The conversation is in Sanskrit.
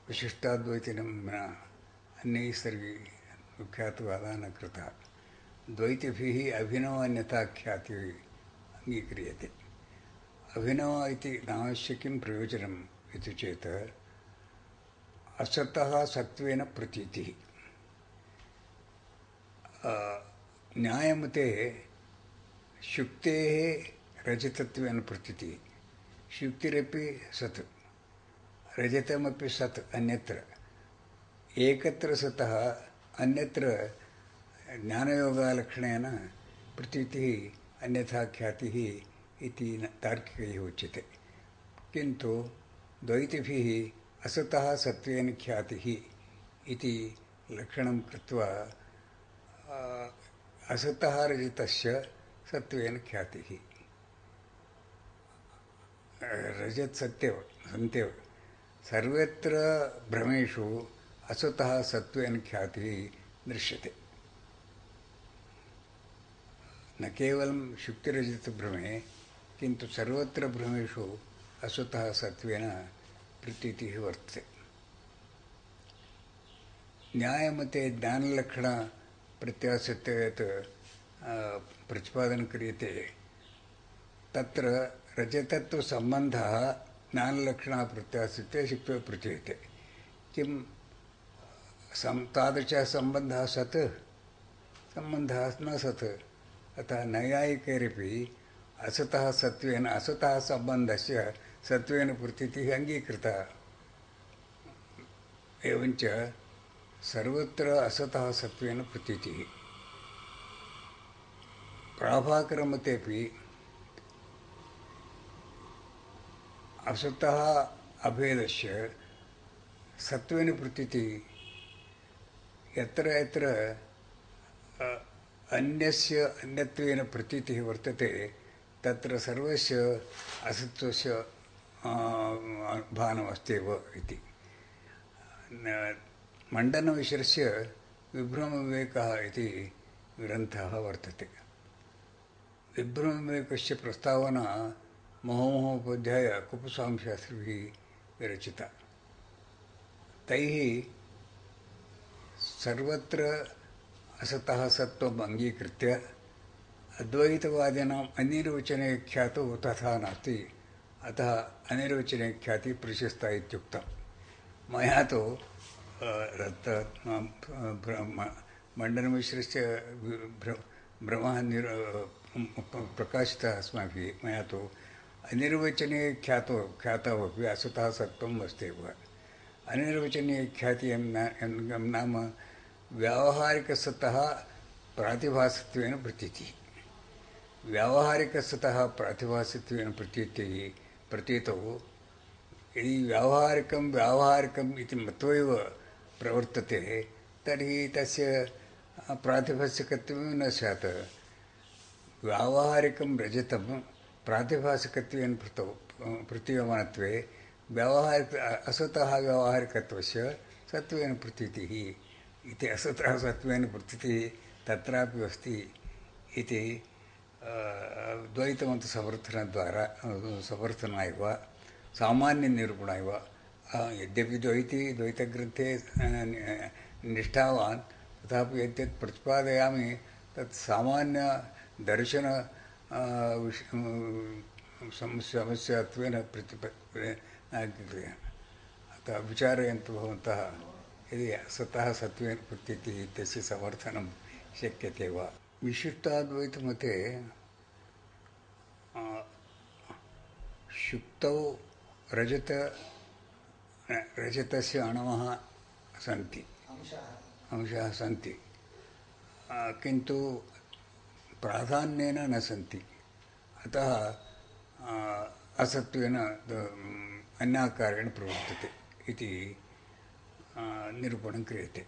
विशिष्टाद्वैतिनं न अन्यैः सर्वैः विख्यातवादः न कृतः। द्वैतिभिः अभिनवान्यताख्यातिः अङ्गीक्रियते। अभिनव इति नामस्य किं प्रयोजनम् इति चेत् असतः सत्त्वेन प्रतीतिः। न्यायमते शुक्तेः रजतत्वेन प्रतीतिः। शुक्तिरपि सत्, रजतमपि सत् अन्यत्र। एकत्र सतः अन्यत्र ज्ञानयोगालक्षणेन प्रतीतिः अन्यथा ख्यातिः इति तार्किकैः उच्यते। किन्तु द्वैतिभिः असतः सत्त्वेन ख्यातिः इति लक्षणं कृत्वा असतः रजतस्य सत्त्वेन ख्यातिः। रजत सत्यव सन्त्यव सर्वत्र भ्रमेषु असतः सत्त्वेन ख्यातिः दृश्यते। न केवलं शुक्तिरजतभ्रमे किन्तु सर्वत्र भ्रमेषु असतः सत्त्वेन प्रतीतिः वर्तते। न्यायमते ज्ञानलक्षणप्रत्यासत्ते यत् प्रतिपादनं क्रियते तत्र रजतत्वसम्बन्धः ज्ञानलक्षणप्रत्यासत्ते शुक्त्वा प्रतीयते। किं तादृशः सम्बन्धः सत्? सम्बन्धः न सत्। अतः नैयायिकैरपि असतः सत्त्वेन असतः सम्बन्धस्य सत्त्वेन प्रतीतिः अङ्गीकृता। एवञ्च सर्वत्र असतः सत्त्वेन प्रतीतिः। प्राभाकरमतेपि असतः अभेदस्य सत्त्वेन प्रतीतिः यत्र यत्र अन्यस्य अन्यत्वेन प्रतीतिः वर्तते तत्र सर्वस्य असत्त्वस्य भानमस्त्येव इति। मण्डनमिश्रस्य विभ्रमविवेकः इति ग्रन्थः वर्तते। विभ्रमविवेकस्य प्रस्तावना महोमहोपाध्याय कुप्पस्वामिशास्त्रिभिः विरचिता। तैः सर्वत्र असतः सत्त्वम् अङ्गीकृत्य अद्वैतवादिनाम् अनिर्वचने ख्यातौ तथा नास्ति, अतः अनिर्वचने ख्यातिः प्रशस्ता इत्युक्तम्। मया तु मण्डनमिश्रस्य भ्रमः प्रकाशितः अस्माभिः। मया तु अनिर्वचने ख्यातमपि असतः सत्त्वम् अस्त्येव। अनिर्वचनीय ख्यातिः नाम व्यावहारिकसतः प्रातिभासत्वेन प्रतीतिः। व्यावहारिकसतः प्रातिभासत्वेन प्रतीतौ यदि व्यावहारिकम् इति मत्वा एव प्रवर्तते तर्हि तस्य प्रातिभासिकत्वं न स्यात्। व्यावहारिकं रजतं प्रातिभासिकत्वेन प्रतीयमानत्वे असतः व्यावहारिकत्वस्य सत्त्वेन प्रतीतिः इति। असतः सत्त्वेन प्रतीतिः तत्रापि अस्ति इति द्वैतमतसमर्थनाय वा सामान्यनिरूपणाय वा यद्यपि द्वैतग्रन्थे निष्ठावान् तथापि यद्यत् प्रतिपादयामि तत् सामान्यदर्शन समस्यात्वेन अतः विचारयन्तु भवन्तः यदि असतः सत्त्वेन प्रतीतिः इत्यस्य समर्थनं शक्यते वा। विशिष्टाद्वैतमते शुक्तौ रजतस्य अणवः सन्ति, अंशाः सन्ति, किन्तु प्राधान्येन न सन्ति। अतः असत्त्वेन अन्याकारेण प्रवर्तते इति निरूपणं क्रियते।